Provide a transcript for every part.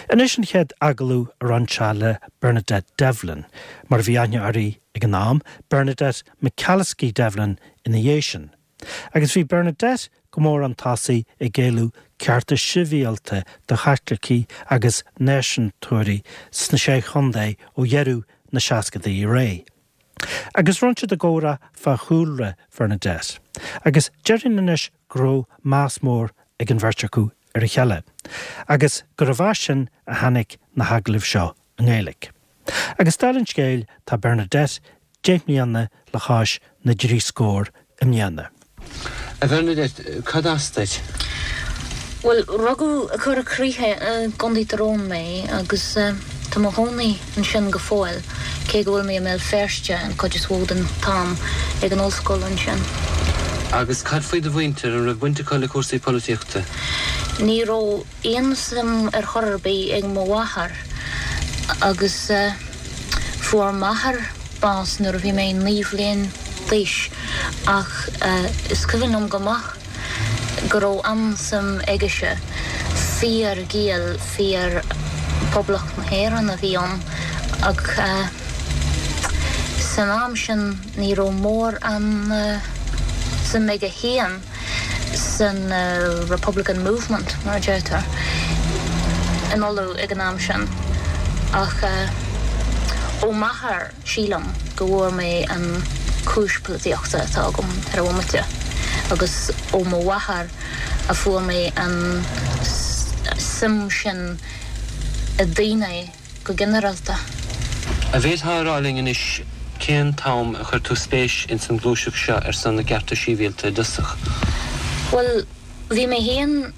Anois an chéad agallamh a rinne sé le Bernadette Devlin, mar a bhí aithne uirthi ag an am, Bernadette McAliskey Devlin ina dhiaidh sin. Agus bhí Bernadette go mór chun tosaigh ag éileamh cearta sibhialta do Chaitlicigh agus náisiúntóirí sna Sé Chontae ó dheireadh na seascadaí ar aghaidh. Agus rinne siad a gcomhrá fá chúlra Bhernadette. Agus déarfainn anois go raibh meas mór ag an bheirt acu ar a chéile, agus gurbh as sin a tháinig na hagallaimh seo i nGaeilge. Agus dála an scéil, tá Bernadette 10 mbliana le chois na dtrí scór i mbliana. A Bhernadette, cad as duit? Bhuel, rugadh i gCora Críche i gContae Tyrone mé agus tá mo chónaí ansin go fóill, cé go bhfuil mé i mBéal Feirste an chuid is mhó den t-am, ag an ollscoil ansin. Agus cad faoi do mhuintir, an raibh baint acu le cúrsaí polaitíochta? Ní raibh aon suim ar chor ar bith ag mo mháthair agus fuair m'athair bás nuair a bhí mé 9 bhliain d'aois ach is cuimhin liom go maith go raibh an-suim aigese. Fíor-Ghael, fíor Poblacht na hÉireann a bhí ann ach san am sin ní raibh mórán suim aige féin san Republican Movement, mar a deirtear, in Uladh ag an am sin. Ach ó m'athair, sílim, go bhfuair mé an chúis polaitíochta atá agam ar an bhomaite agus ó mo mháthair a fuair mé an suim sin i daoine go ginearálta. An bhféadfá a rá linn anois cén t-am a chuir tú spéis ins an ghluaiseacht seo ar son na gcearta síbhialta i dtosach? Bhuel, bhí mé féin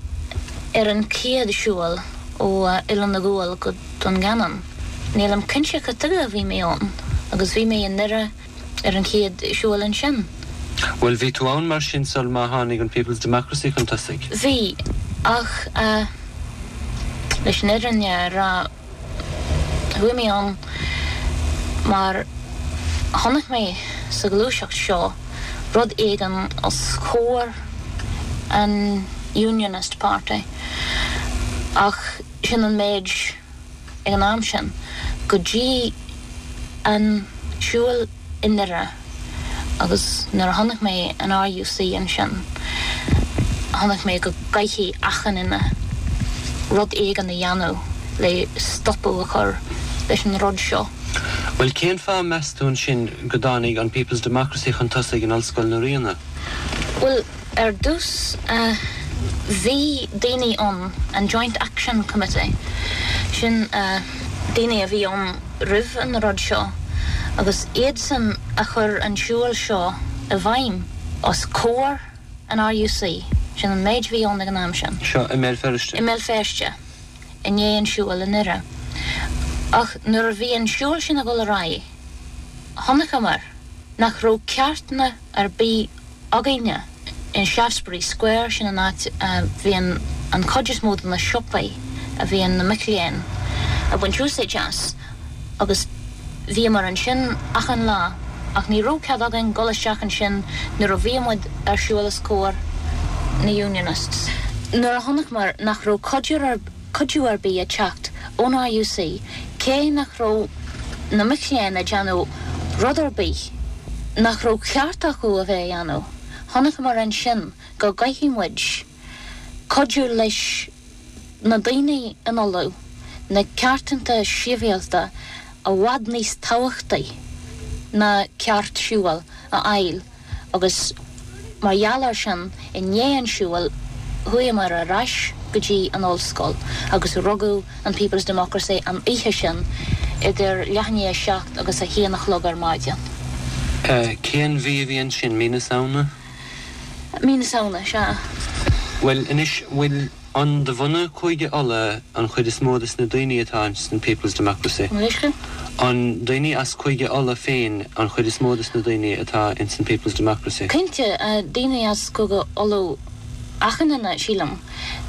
ar an chéad siúl ó Oileán na gCuan go Dún Geanainn. Nílim cinnte cad tuige a bhí mé ann agus bhí mé i nDoire ar an chéad siúl ansin. Bhuel, bhí tú ann mar sin sul má tháinig an People's Democracy chun tosaigh? Bhí, ach leis an fhírinne a rá, chuaigh mé ann mar chonaic mé sa ghluaiseacht seo rud éigin os comhair an Unionist Party ach sin an méid ag an am sin, go dtí an siúl i nDoire agus nuair a chonaic mé an RUC ansin, chonaic mé go gcaithfidh achan duine rud éigin a dhéanamh le stopadh a chur leis an rud seo. Bhuel, cén fáth, meas tú ansin, go dtáinig an People's Democracy chun tosaigh in Ollscoil na Ríona? Bhuel, Ar dtús, bhí daoine ann, an Joint Action Committee, sin daoine a bhí ann roimh an rud seo, agus iadsan a chuir an siúl seo i bhfeidhm os comhair an RUC, sin an méid a bhí ann ag an am sin. Seo i mBéal Feirste? I mBéal Feirste, i ndiaidh an siúil i nDoire. Ach nuair a bhí an siúl sin ag dul ar aghaidh, chonaiceamar nach raibh ceartanna ar bith againne. In Shaftesbury Square, sin an áit a bhíonn an chuid is mó de na siopaí a bhíonn na mic léinn ag baint úsáid as, agus bhíomar ansin achan lá, ach ní raibh cead againn dul isteach ansin nuair a bhí muid ar siúl os comhair na Unionists. Nuair a chonaiceamar nach raibh cuidiú ar bith ag teacht ón RUC, cé nach raibh na mic léinn ag déanamh rud ar bith nach raibh ceart acu a bheith a dhéanamh, chonaiceamar ansin go gcaithfidh muid cuidiú leis na daoine in Uladh, na ceartanta sibhialta i bhfad níos tábhachtaí ná ceart siúil a fháil. agus mar gheall air sin, i ndiaidh an siúil, chuamar ar ais go dtí an ollscoil agus rugadh an People's Democracy an oíche sin idir leath i ndiaidh a 7 agus a haon a chlog ar maidin. Cén mhí a bhí ansin? Mí na Samhna? Mí na Samhna, sea. Bhuel, anois, bhfuil. An de bhunadh Chúige Uladh an chuid is mó des na daoine atá ins an People's Democracy? An daoine as Cúige Uladh féin an chuid is mó des na daoine atá ins an People's Democracy? Cinnte, daoine as Cúige Uladh achan duine, sílim.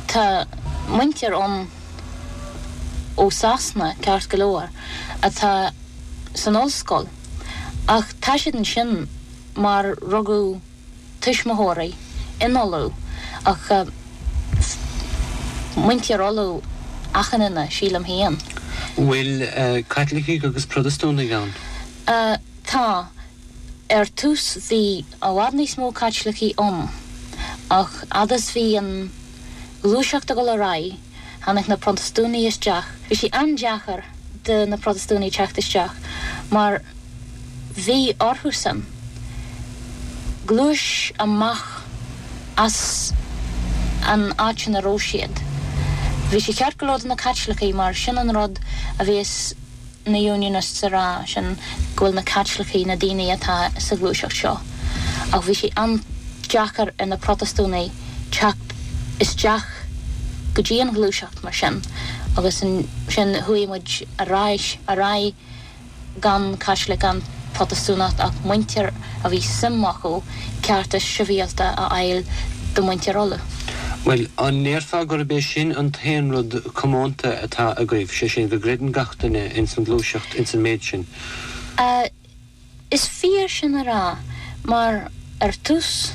Tá muintir ann ó Sasana, ceart go leor, atá san ollscoil, ach tá siad ansin mar rugadh tuismitheoirí in Uladh ach muintir Uladh. achan duine, sílim féin. Bhfuil Caitlicigh agus Protastúnaigh ann? Tá. Ar tús bhí i bhfad níos mó Caitlicigh ann, ach fhad is bhí an ghluaiseacht ag dul ar aghaidh, tháinig na Protastúnaigh isteach. Bhí sé an-deacair do na Protastúnaigh teacht isteach mar bhí orthusan gluais amach as an áit ina raibh siad. Bhí sé ceart go leor do na Caitlicigh mar sin an rud a bhíos na Unionists a rá, sin go bhfuil na Caitlicigh na daoine atá sa ghluaiseacht seo. Ach bhí sé an-deacair ar na Protastúnaigh teacht isteach go dtí an ghluaiseacht mar sin agus ansin chuaigh muid ar ais ar aghaidh gan Caitlic gan Protastúnach ach muintir a bhí suim acu cearta sibhialta a fháil do mhuintir Uladh. Bhuel, an ndéarfá gurb é sin an t-aon rud comónta atá agaibh, sé sin, go gcreideann gach duine ins an ghluaiseacht ins an méid sin? Is fíor sin a rá, mar ar tús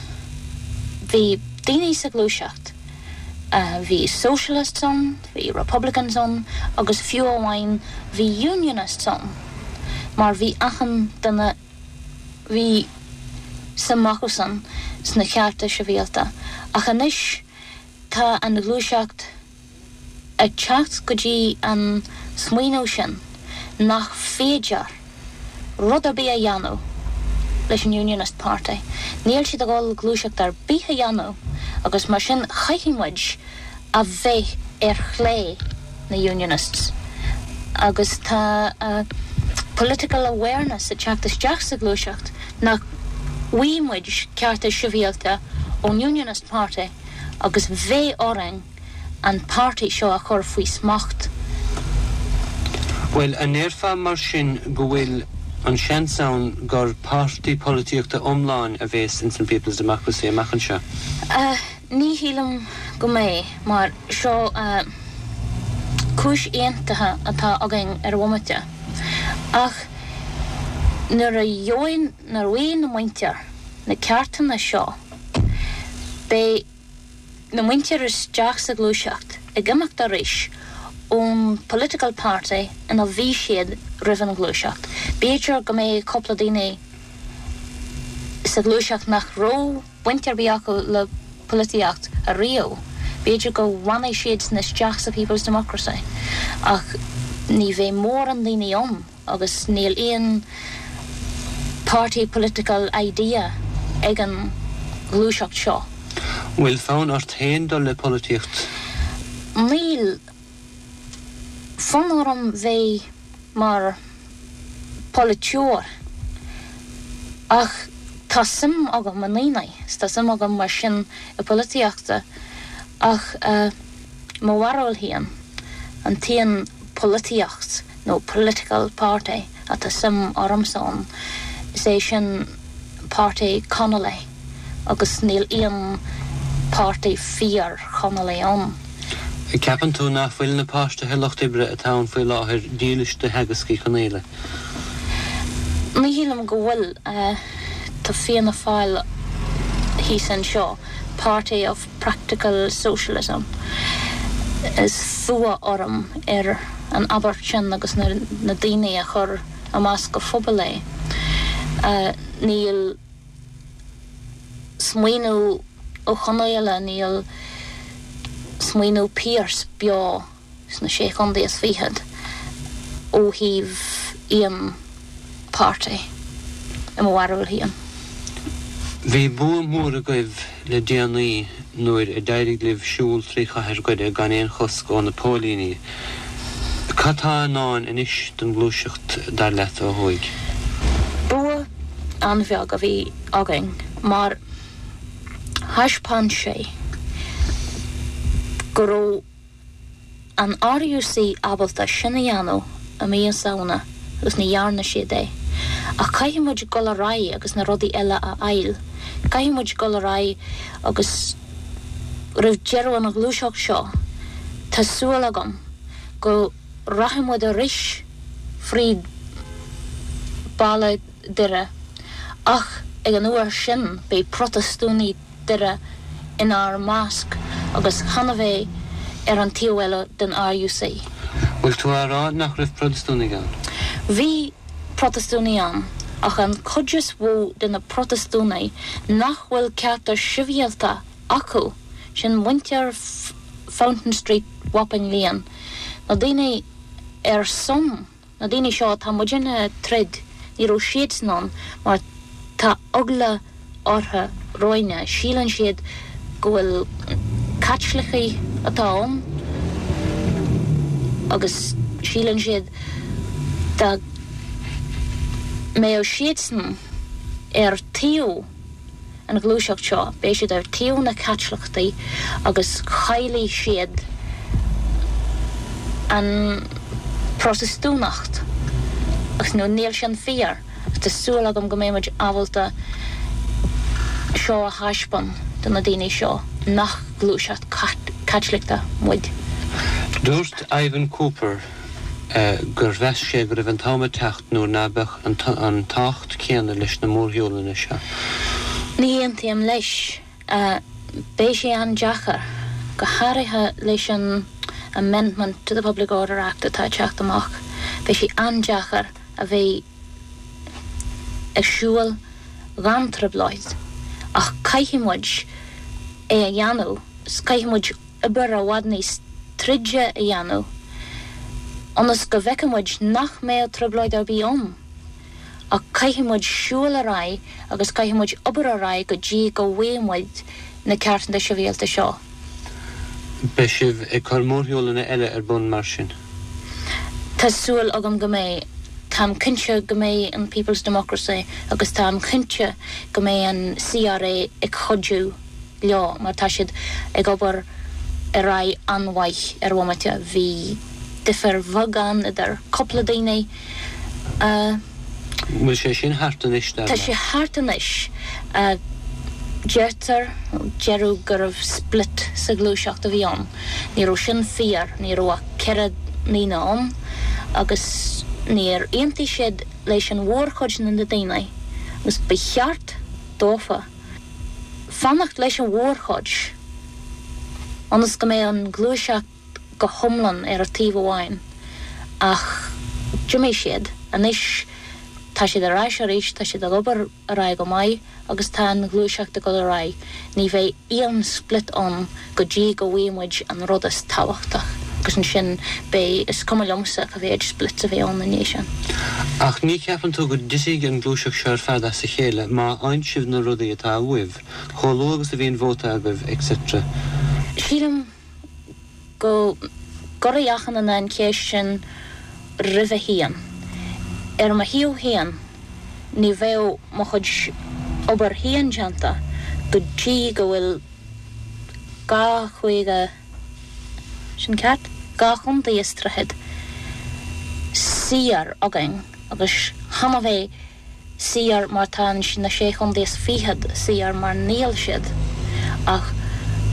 bhí daoine sa ghluaiseacht, bhí Socialists ann, bhí Republicans ann agus fiú amháin bhí Unionists ann, mar bhí achan duine, bhí suim acusan sna cearta sibhialta. Ach anois tá an ghluaiseacht ag teacht go dtí an smaoineamh sin nach féidir rud ar bith a dhéanamh leis an Unionist Party. Níl siad ag dul gluaiseacht ar bith a dhéanamh agus mar sin chaithfidh muid a bheith ar chlé na Unionists agus tá political awareness ag teacht isteach sa ghluaiseacht nach bhfaighidh muid cearta sibhialta ón Unionist Party agus bheidh orainn an páirtí seo a chur faoi smacht. Bhuel, an ndéarfá mar sin go bhfuil an seans ann gur páirtí polaitíochta iomlán a bhéas ins an People's Democracy amach anseo? Ní shílim go mbeidh, mar seo cúis aontaithe atá againn ar bhomaite. Ach nuair a gheobhaidh, nuair a bhfaighidh na muintir na ceartanna seo, beidh na muintir isteach sa ghluaiseacht ag imeacht arís ón political party ina bhí siad roimh an ghluaiseacht. B'fhéidir go mbeidh cúpla daoine sa ghluaiseacht nach raibh baint ar bith acu le polaitíocht ariamh. B'fhéidir go bhfanfaidh siadsan isteach sa People's Democracy ach ní bheidh mórán daoine ann agus níl aon party political idea ag an ghluaiseacht seo. Bhfuil fonn ort féin dul le polaitíocht? Níl fonn orm bheith mar pholaiteoir ach tá suim agam i ndaoine 's tá suim agam mar sin i polaitíochta ach mo bharúil féin an t-aon polaitíocht nó political party atá suim ormsa ann is é sin páirtí Connolly agus níl aon páirtí fíor Chonnolly ann. Ceapann tú nach bhfuil na páirtithe lucht oibre atá ann faoi láthair dílis do theagasc Uí Chonaola? Ní shílim go bhfuil. Tá Fianna Fáil thíos anseo, Party of Practical Socialism. Is fuath orm ar an abairt sin agus na daoine a chuir i measc an phobail é. Níl. smaoineamh Ó Conaola, níl smaoineamh Pearse beo sna Sé Chontae is Fichead ó thaobh aon páirtí, i mo bharúil féin. Bhí bua mór agaibh le déanaí nuair a d'éirigh libh siúl trí chathair Dhoire gan aon chosc ó na póilíní. Cad tá i ndán anois don ghluaiseacht, dar leat, ó thuaidh? Bua an-bheag a bhí againn mar thaispeáin sé go raibh an RUC ábalta sin a dhéanamh i mí na Samhna agus ní dhearna siad é. Ach caithfidh muid dul ar aghaidh agus na rudaí eile a fháil. Caithfidh muid dul ar aghaidh agus roimh deireadh an ghluaiseacht seo tá súil agam go rachaidh muid arís fríd baile Doire ach ag an uair sin beidh Protastúnaigh Doire inár measc agus chan a bheidh. ar an taobh eile den RUC. Bhfuil tú á rá nach raibh Protastúnaigh ann? Bhí Protastúnaigh ann, ach an chuid is mhó de na Protastúnaigh nach bhfuil cearta sibhialta acu, sin muintir Fountain Street, Wapping Lane, na daoine ar son Na daoine seo atá muidinne ag troid, ní raibh siadsan ann mar tá eagla orthu romhainne, síleann siad go bhfuil Caitlicigh atá ann agus síleann siad dá mbeadh siadsan ar taobh an ghluaiseacht seo, beidh siad ar taobh na Caitliceachtaí agus caillfidh siad an Protastúnacht. Agus nó níl sin fíor. Agus tá súil agam go mbeidh muid ábalta seo a thaispeán do na daoine seo, nach gluaiseacht Caitliceachta muid. Dúirt Ivan Cooper gur mheas sé go raibh an t-am ag teacht nuair ná beadh an tábhacht céanna leis na mórshiúlanna seo. Ní aontaím leis. Beidh sé an-deacair, go háirithe leis an Amendment to the Public Order Act atá ag teacht amach. Beidh sé an-deacair a bheith ag siúl gan trioblóid, ach caithfidh muid é a dhéanamh, caithfidh muid obair i bhfad níos troide a dhéanamh ionas go bhfeicfidh muid nach mbeadh trioblóid ar bith ann. Ach caithfidh muid siúl ar aghaidh agus caithfidh muid obair ar aghaidh go dtí go bhfaighidh muid na cearta sibhialta seo. Beidh sibh ag cur mórshiúlanna eile ar bun mar sin? Tá súil agam go mbeidh. Táim cinnte go mbeidh an People's Democracy agus táim cinnte go mbeidh an CRA ag cuidiú. leo mar tá siad ag obair ar aghaidh an-mhaith ar an bhomaite. Bhí difear bheag ann idir cúpla daoine a. Bhfuil sé sin thart anois, dar leat? Tá sé thart anois. Deirtear, deireadh go raibh split sa ghluaiseacht a bhí ann. Ní raibh sin fíor, ní raibh ach 4 ndaoine ann agus níor aontaigh siad leis an mhórchuid de na daoine agus ba cheart dófa fanacht leis an mhórchuid ionas go mbeadh an ghluaiseacht go hiomlán ar taobh amháin ach d'imigh siad. Anois tá siad ar ais arís, tá siad ag obair ar aghaidh go maith agus tá an ghluaiseacht ag dul ar aghaidh. Ní bheidh aon split ann go dtí go bhfaighidh muid an rud is tábhachtach agus ansin beidh, is cuma liomsa cá mhéad splits a bheidh ann i ndiaidh sin. Ach ní cheapann tú go dtitfidh an gluaiseacht seo ar fad as a chéile má fhaigheann sibh na rudaí atá uaibh, chomh luath agus a bhíonn vóta agaibh, etc. Sílim go gcuirfidh achan duine an cheist sin roimhe féin. Ar mo thaobh féin, ní bheadh mo chuid obair féin déanta go dtí go bhfuil 2 chúige, sin ceart? 2 chontae is tríochad saor againn agus chan a bheith saor mar tá na sé chontae is fichead saor mar níl siad ach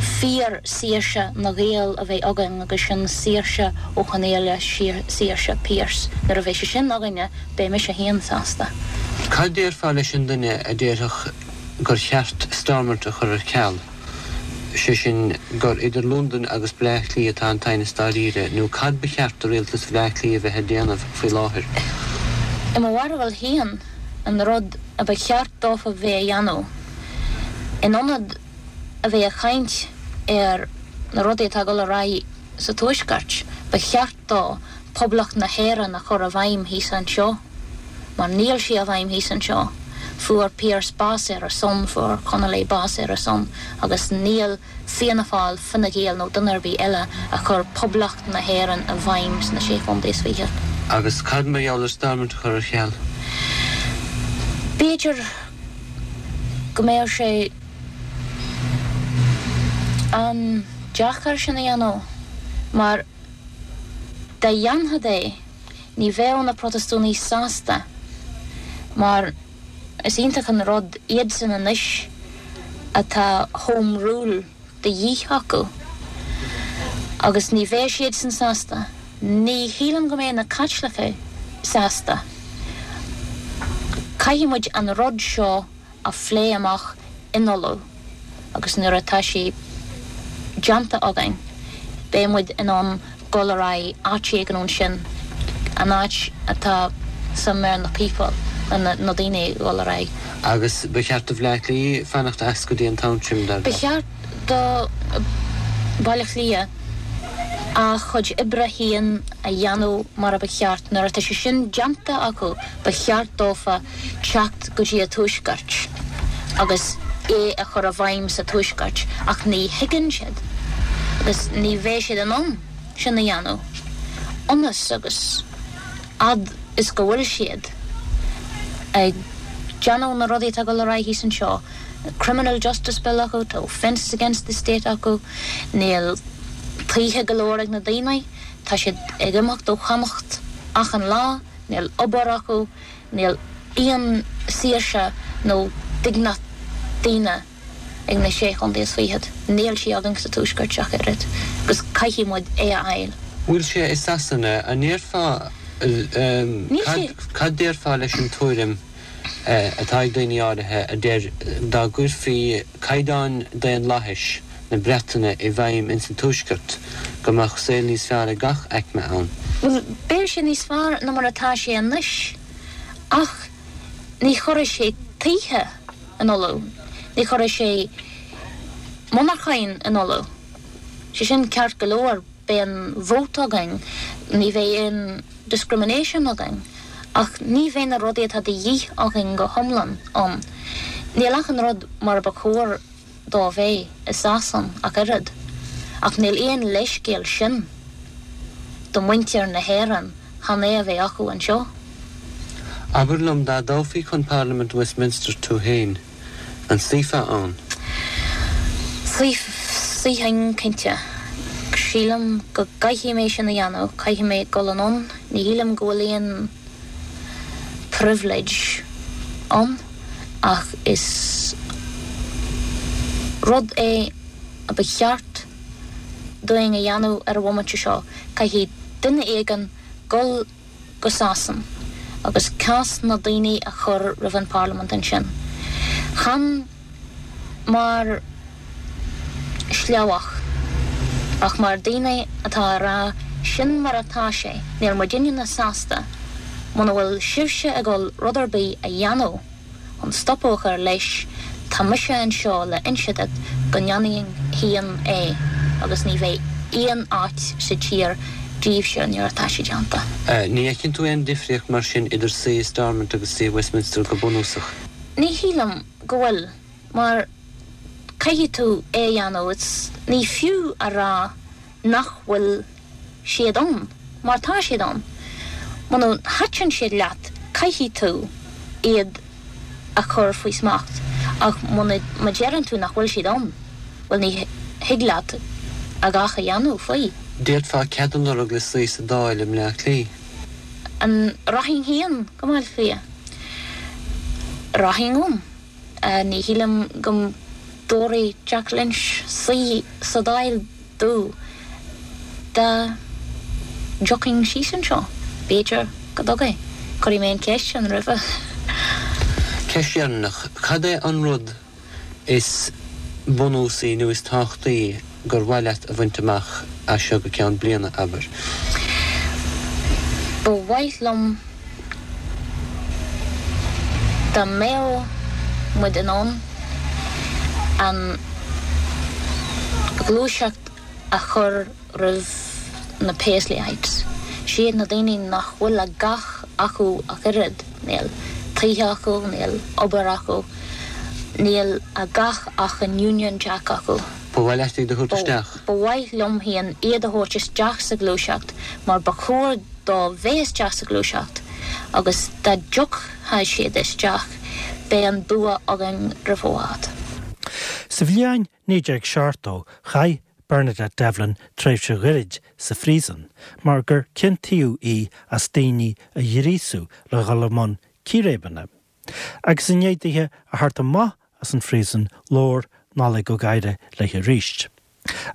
fíor saoirse na Gael a bheith againn agus sin saoirse Ó Conghaile saoirse Pearse nuair a bheidh sé sin againne beidh mise féin sásta. Cad déarfá leis an duine a déarfadh gur cheart Stormont a chur ar ceal, sé sin, gur idir Londain agus Bleá Cliath atá an t-aighneas dáiríre, nó cad ba cheart do rialtas Bhleá Cliath a bheith ag déanamh faoi láthair? I mo bharúil féin, an rud a ba cheart dófa bheith a dhéanamh, in ionad a bheith ag caint ar na rudaí atá ag dul ar aghaidh sa Tuaisceart, ba cheart dó Poblacht na hÉireann a chur i bhfeidhm thíos anseo, mar níl sí i bhfeidhm thíos anseo. Fuair Pearse bás ar a son, fuair Connolly bás ar a son, agus níl Fianna Fáil, Fine Gael nó duine ar bith eile a chuir Poblacht na hÉireann i bhfeidhm sna Sé Chontae is Fichead. Agus cad mar gheall ar Stormont a chur ar ceal? B'fhéidir go mbeadh sé an-deacair sin a dhéanamh, mar. Dá dhéanfad é, ní bheadh na Protastúnaigh sásta, mar is iontach an rud iadsan anois atá Home Rule de dhíth acu, agus ní bheadh siadsan sásta. Ní shílim go mbeadh na Caitlicigh sásta. Caithfidh muid an rud seo a phlé amach in Uladh agus nuair atá sé déanta againn. Beidh muid in ann dul ar aghaidh áit éigin ansin, an áit atá suim ar na people, na daoine ag dul ar aghaidh. Agus ba cheart do Bhleá Cliath fanacht as go dtí an t-am sin, dar leat? Ba cheart do Bhaile Átha Cliath a chuid oibre féin a dhéanamh mar a ba cheart. Nuair atá sé sin déanta acu, ba cheart dófa teacht go dtí an Tuaisceart agus é a chur i bhfeidhm sa Tuaisceart ach ní thuigeann siad agus ní bheidh siad in ann sin a dhéanamh ionas agus fhad is go bhfuil siad ag déanamh na rudaí atá ag dul ar aghaidh thíos anseo, Criminal Justice Bill acu, tá offences against the state acu, níl tithe go leor ag na daoine, tá siad ag imeacht ó Chonnacht achan lá, níl obair acu, níl aon saoirse nó dingneacht daonna ag na Sé Chontae is Fichead. Níl sí againn sa Tuaisceart ach oiread agus caithfidh muid é a fháil. Bhfuil sé i Sasana, an ndéarfá, cad, cad déarfá leis an tuairim atá ag daoine áirithe a deir dá gcuirfí caighdeáin daonlathais na Breataine i bhfeidhm ins an Tuaisceart go mbeadh saol níos fearr ag gach aicme ann? Bhuel, beidh sé níos fearr ná mar atá sé anois ach ní chuirfidh sé tithe in Uladh, ní chuirfidh sé monarchain in Uladh. Sé sin ceart go leor, beidh an vóta againn, ní bheidh aon discrimination againn ach ní bheidh na rudaí atá de dhíth againn go hiomlán ann. Níl achan rud mar a ba chóir dó bheith i Sasain ach oiread, ach níl aon leithscéal sin do mhuintir na hÉireann chan é a bheith acu anseo. Abair liom, dá dtoghfaí chun Parlaimint Westminster tú féin, an suífeá ann? Suífinn, cinnte. Sílim go gcaithfidh mé sin a dhéanamh, caithfidh mé dul anonn, ní shílim go bhfuil aon. privilege ann ach is rud é a ba cheart dúinn a dhéanamh ar an bhomaite seo. Caithfidh duine éigin dul go Sasain agus cás na daoine a chur roimh an bParlaimint ansin. Chan. mar shleabhach, ach mar daoine atá a rá sin mar atá sé, níl muidinne sásta muna bhfuil sibhse ag dul rud ar bith a dhéanamh chun stopadh a chur leis, tá mise anseo le inse duit go ndéanfainn féin é agus ní bheidh aon áit sa tír díbhse nuair atá sé déanta. Ní fheiceann tú aon difríocht mar sin idir suí i Stormont agus suí i Westminster go bunúsach? Ní shílim. go bhfuil, mar caithfidh tú é a dhéanamh, it's, ní fiú a rá nach bhfuil siad ann, mar tá siad ann. Muna thaitin siad leat, caithfidh tú iad a chur faoi smacht, ach muna, má deireann tú nach bhfuil siad ann, bhuel ní thig leat a dhath a dhéanamh faoi. D'fhéadfá cead a lorg le suí sa Dáil i mBleá Cliath. An rachainn féin go Baile Átha Cliath? Rachainn ann. Ní shílim go dtabharfaidh Jack Lynch suí sa Dáil domh dá dtiocfainn síos anseo. B'fhéidir go dtabharfaidh. Cuirfidh mé an cheist sin roimhe. Ceist dheireanach, cad é an rud is bunúsaí nó is tábhachtaí gur mhaith leat a bhaint amach as seo go ceann bliana, abair? Ba mhaith liom dá mbeadh muid in ann an ghluaiseacht a chur roimh na Paisleyites. Siad na daoine nach bhfuil a dhath acu ach oiread, níl tithe acu, níl obair acu, níl a dhath ach an Union Jack acu. Ba mhaith leat iad a thabhairt isteach? Ba mhaith liom féin iad a thabhairt isteach sa ghluaiseacht mar ba chóir dóibh bheith isteach sa ghluaiseacht agus dá dtiocfadh siad isteach beidh an bua againn roimh i bhfad. Sa bhliain 1970 chaith Bernadette Devlin tréimhse ghairid sa phríosún mar gur ciontaíodh í as daoine a ghríosú le dhul i mbun círéibeanna. Agus i ndiaidh dithe a theacht amach as an phríosún labhair Nollaig Ó Gadhra léi arís.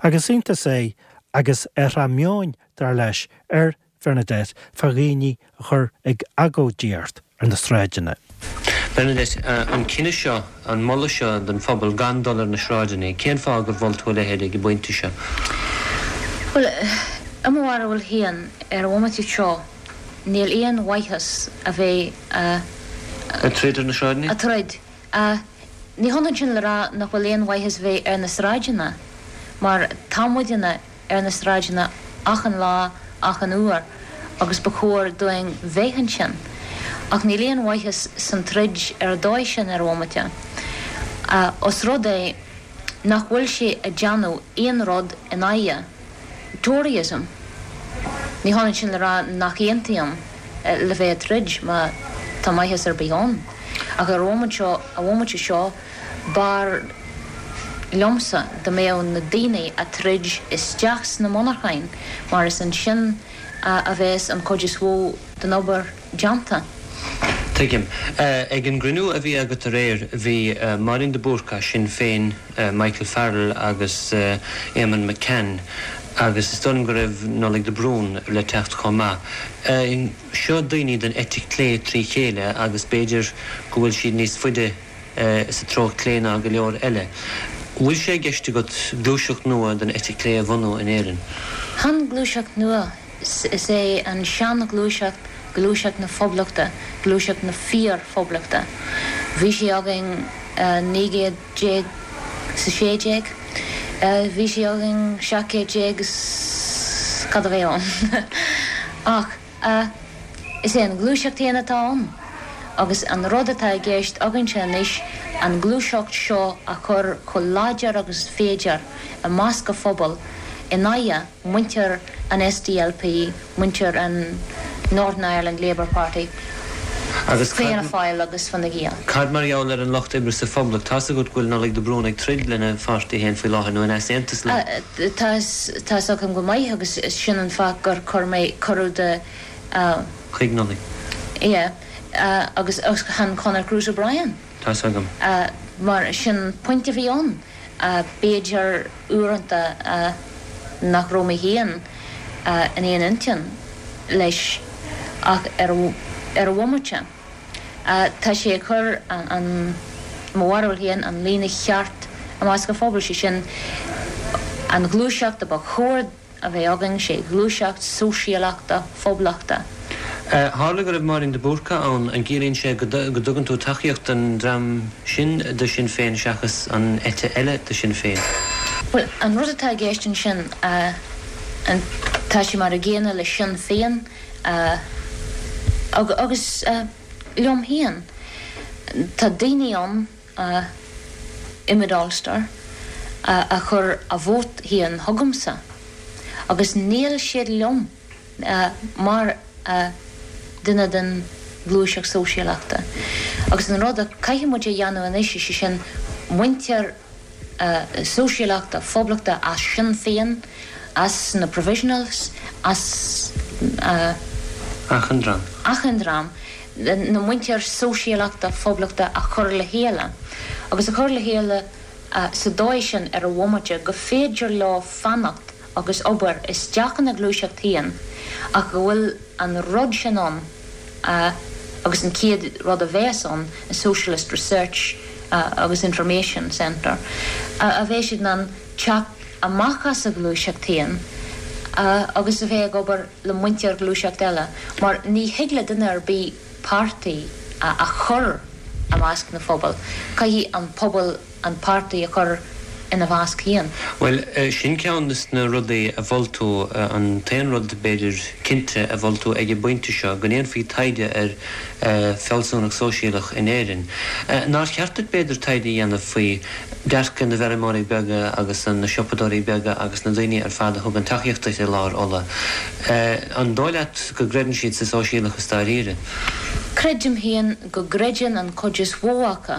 Agus iontas é agus athrá meoin, dar leis, ar Bhernadette fá dhaoine a chur ag agóidíocht ar na sráideanna. Bernadette, An cinneadh seo, an moladh seo don phobal gan dul ar na sráideanna, cén fáth gur mhol tú a leithéid ag an bpointe seo? Bhuel, i mo bharúil féin, ar an bhomaite seo, níl aon mhaitheas a bheith a. Ag troid ar na sráideanna? Ag troid. Ní hionann sin le rá nach bhfuil aon mhaitheas bheith ar na sráideanna, mar tá muidinne ar na sráideanna achan lá, achan uair, agus ba chóir dúinn bheith ansin. Ach níl aon mhaitheas san troid ar an dóigh sin ar an bhomaite. Os rud é nach bhfuil sé ag déanamh aon rud in aghaidh Toryism. Ní hionann sin le rá nach aontaím le bheith ag troid má tá maitheas ar bith ann. Ach ar an bhomaite seo, an bhomaite seo, b'fhearr liomsa dá mbeadh na daoine ag troid isteach sna monarcháin mar is ansin a bheas an chuid is mhó den obair déanta. Tuigim. Ag an gcruinniú a bhí agat aréir, bhí Máirín de Búrca, Sinn Féin, Michael Farrell agus Éamonn McCann agus is dóigh liom go raibh Nollaig de Brún le teacht chomh maith. Seo daoine den eite chlé trí chéile agus b'fhéidir go bhfuil siad níos faide sa treo clé ná go leor eile. Bhfuil sé i gceist agat gluaiseacht nua den eite chlé a bhunú in Éirinn? Chan gluaiseacht nua. Is é an sean-ghluaiseacht gluaiseacht na Poblachta, gluaiseacht na fíor-Phoblachta. Bhí sí againn 19 gcéad is a 16, bhí sí againn 17 céad is cad a bheidh ann. Ach is é an ghluaiseacht fhéin atá ann agus an rud atá i gceist againnse anois an ghluaiseacht seo a chur chomh láidir agus is féidir i measc an phobail in aghaidh muintir an SDLP, muintir an Northern Ireland Labour Party, Agus Fianna Fáil agus Fine Gael. Cad mar gheall ar an Lucht Oibre sa Phoblacht? Tá's agat go bhfuil Nollaig de Brún ag troid lena pháirtí féin faoi láthair, nó in easaontas leo. Tá 'fhios agam go maith agus sin an fáth gur chuir mé cuireadh do. Chuig Nollaig. Yeah. Agus chan Conor Cruise O'Brien. Tá's agam. Mar sin an pointe a bhí ann. B'fhéidir uaireanta nach raibh mé féin in aon intinn leis ach ar an bhomaite tá sé ag cur an, mo bharúil féin, an líne cheart i measc an phobail, sé sin an ghluaiseacht a ba chóir a bheith againn, sé ghluaiseacht sóisialachta phoblachta. Tharla go raibh Máirín de Búrca ann, an gciallaíonn sé go dtugann tú tacaíocht don dream sin de Shinn Féin seachas an eite eile de Shinn Féin? Bhuel, an rud atá i gceist ansin, tá sé mar a gcéanna le Sinn Féin agus liom féin. Tá daoine ann i Mid Ulster a chuir a vóta féin chugamsa agus níl siad liom mar duine den ghluaiseacht sóisialachta. Agus an rud a caithfidh muid a dhéanamh anois, is é sin muintir sóisialachta phoblachta as Sinn Féin, as na Provisionals, as. Achan dream. Achan dream. na muintir sóisialachta phoblachta a chur le chéile, agus a chur le chéile sa dóigh sin ar an bhomaite go féidir leo fanacht agus obair isteach ina gluaiseacht féin ach go bhfuil an rud sin ann agus an chéad rud a bheas ann, an Socialist Research agus Information Centre, a bheidh siad in ann teacht amach as a ghluaiseacht féin agus a bheith ag obair le muintir ghluaiseacht eile, mar ní thig le duine ar bith páirtí a chur i measc na phobal, caithfidh an pobal an páirtí a chur ina mheasc féin. Bhuel, sin ceann de na rudaí a mhol tú, an t-aon rud, b'fhéidir, cinnte a mhol tú ag an bpointe seo, go ndéanfaí taighde ar fealsúnacht sóisialach in Éirinn. Nár cheart duit, b'fhéidir, taighde a dhéanamh faoi dearcadh na bhfeirmeoirí beaga agus na siopadóirí beaga agus na daoine ar fad a thugann tacaíocht duit i lár Uladh. An dóigh leat go gcreideann siad sa sóisialachas dáiríre? Creidim féin go gcreideann an chuid is mhó acu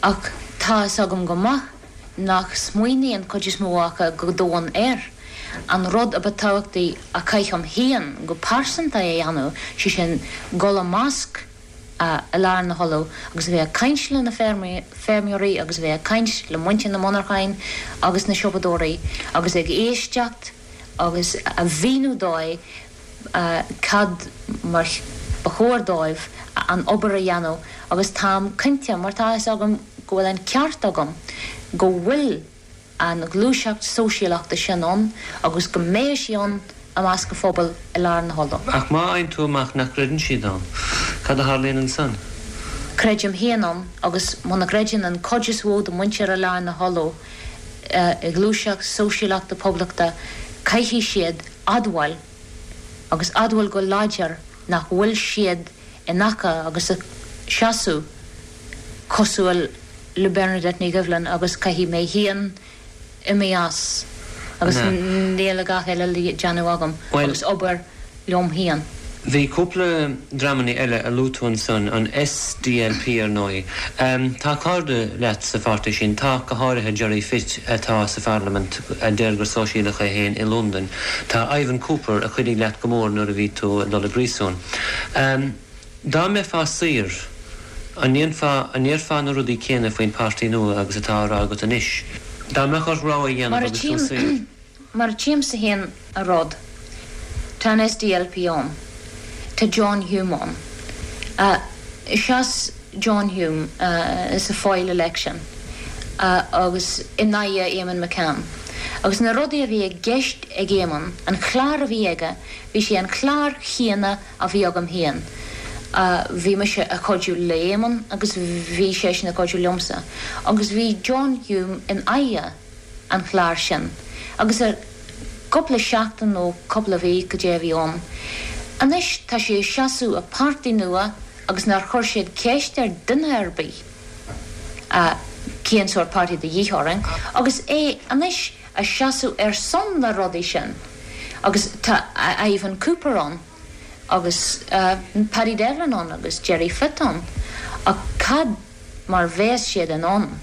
ach tá fhios agam go maith nach smaoiníonn cuid is mó acu go domhain air. An rud a ba tábhachtaí a chaithim féin go pearsanta a dhéanamh, sé sin dul i measc i lár na hUladh agus a bheith ag caint le na feirmeoirí agus a bheith ag caint le muintir na monarchan agus na siopadóirí agus ag éisteacht agus a mhíniú dóibh cad mar ba chóir dóibh an obair a dhéanamh agus táim cinnte, mar tá fhios agam go bhfuil an ceart agam, go bhfuil. an ghluaiseacht sóisialachta sin ann agus go mbeidh sí ann i measc an phobail i lár na hUladh. Ach má fhaigheann tú amach nach gcreideann siad ann, cad a tharlaíonn ansan? Creidim féin ann agus muna gcreideann an cuid is mhó de muintir i lár na hUladh i ngluaiseacht sóisialachta poblachta caithfidh siad admháil agus admháil go láidir nach bhfuil siad in aice agus ag seasamh cosúil le Bernadette Ní Dhoibhlin agus caithfidh mé féin imí as agus níl a dhath eile le déanamh agam agus obair liom féin. Bhí cúpla dreamannaí eile a luaigh tú ansan, an SDLP ar ndóigh. Tá cairde leat sa pháirtí sin, tá, go háirithe Gerry Fitt atá sa pharlaimint a deir gur sóisialach é féin i Londain. Tá Ivan Cooper a chuidigh leat go mór nuair a bhí tú ag dul i bpríosún. Dá mbeifeá saor, an ndéanfá, an ndéarfá na rudaí céanna faoin páirtí nua agus atá á rá agat anois? Dá mbeadh ort rogha a dhéanamh agus tú saor. Mar a tchímse féin an rud, tá an SDLP ann, tá John Hume ann. Sheas John Hume sa Foyle election agus in aghaidh Eamonn McCann. Agus na rudaí a bhí i gceist ag Eamonn, an clár a bhí aige, bhí sé an clár chéanna a bhí agam féin. Bhí mise ag cuidiú le Éamonn agus bhí seisean ag cuidiú liomsa. Agus bhí John Hume in aghaidh an chláir sin. Agus ar cúpla seachtain nó cúpla mhí cad é a bhí ann. Anois tá sé ag seasamh i páirtí nua agus nár chuir siad ceist ar duine ar bith cén sórt páirtí de dhíth orainn agus é anois ag seasamh ar son na rudaí sin agus tá Ivan Cooper ann agus Paddy Devlin ann agus Gerry Fitt ann ach cad mar bheas siad in ann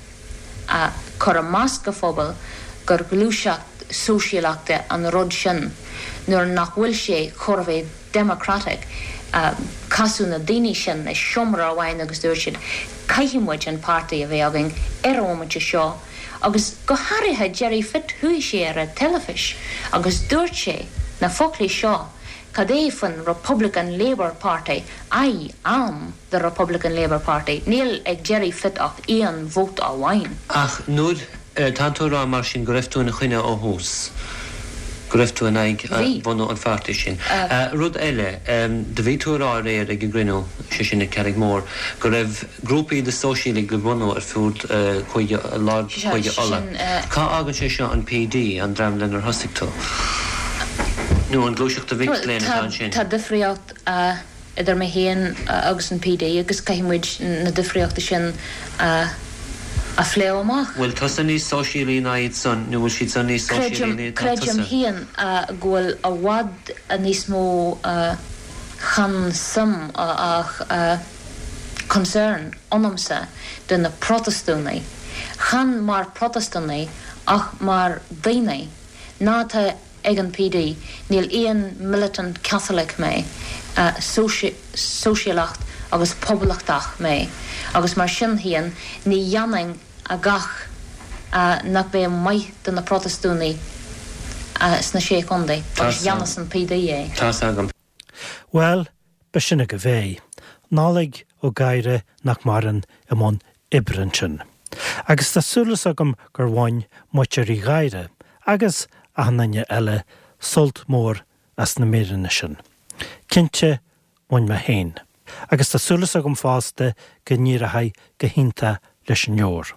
a chur i measc an phobail gur ghluaiseacht sóisialachta an rud sin nuair nach bhfuil sé chóir a bheith democratic. Casadh na daoine sin i seomra amháin agus dúirt siad caithfidh muid an páirtí a bheith againn ar an bhomaite seo Agus go háirithe Gerry Fitt chuaigh sé ar an teilifis agus dúirt sé na foclaí seo cad é faoin Republican Labour Party, I am the Republican Labour Party. Níl ag Gerry Fitt ach aon vóta amháin. Ach nuair, tánn tú ag rá mar sin go raibh tú ina choinne ó thús, go raibh tú in aghaidh bhunú an pháirtí sin. Rud eile, do bhí tú ag rá aréir ag an gcruinniú, sé sin ag Carraig Mhór, go raibh, Grúpaí de sóisialaigh le bunú ar fud Chúige lár Chúige Uladh. Cá fhágann sé seo an PD, an dream lenar thosaigh tú? Nó an gluaiseacht de mhic léinn atá ansin? Tá difríocht idir mé féin agus an PD agus caithfidh muid na difríochtaí sin a phlé amach. Bhfuil tusa níos sóisialaí ná iad san nó bhfuil siad san níos sóisialaí ná atá tusa? Creidim féin go bhfuil i bhfad níos mó chan suim ach concern ionamsa do na Protastúnaigh, chan mar Protastúnaigh ach mar daoine, ná atá ag an PD. Níl aon militant Catholic mé, sóisialacht agus poblachtach mé agus mar sin féin ní dhéanfainn a gach nach mbeadh maith do na Protastúnaigh sna Sé Chontae agus dhéanfas an PD é. Tá's agam. Bhuel, b'shin agaibh é. Nollaig Ó Gadhra nach maireann i mbun oibre ansin. Agus tá súil agam gur bhain muintir Uí Ghadhra, agus achan duine eile, sult mór as na míreanna sin. Cinnte, bhain mé féin. Agus tá súil agam fosta go n-éireoidh go hiontach leis an leabhar.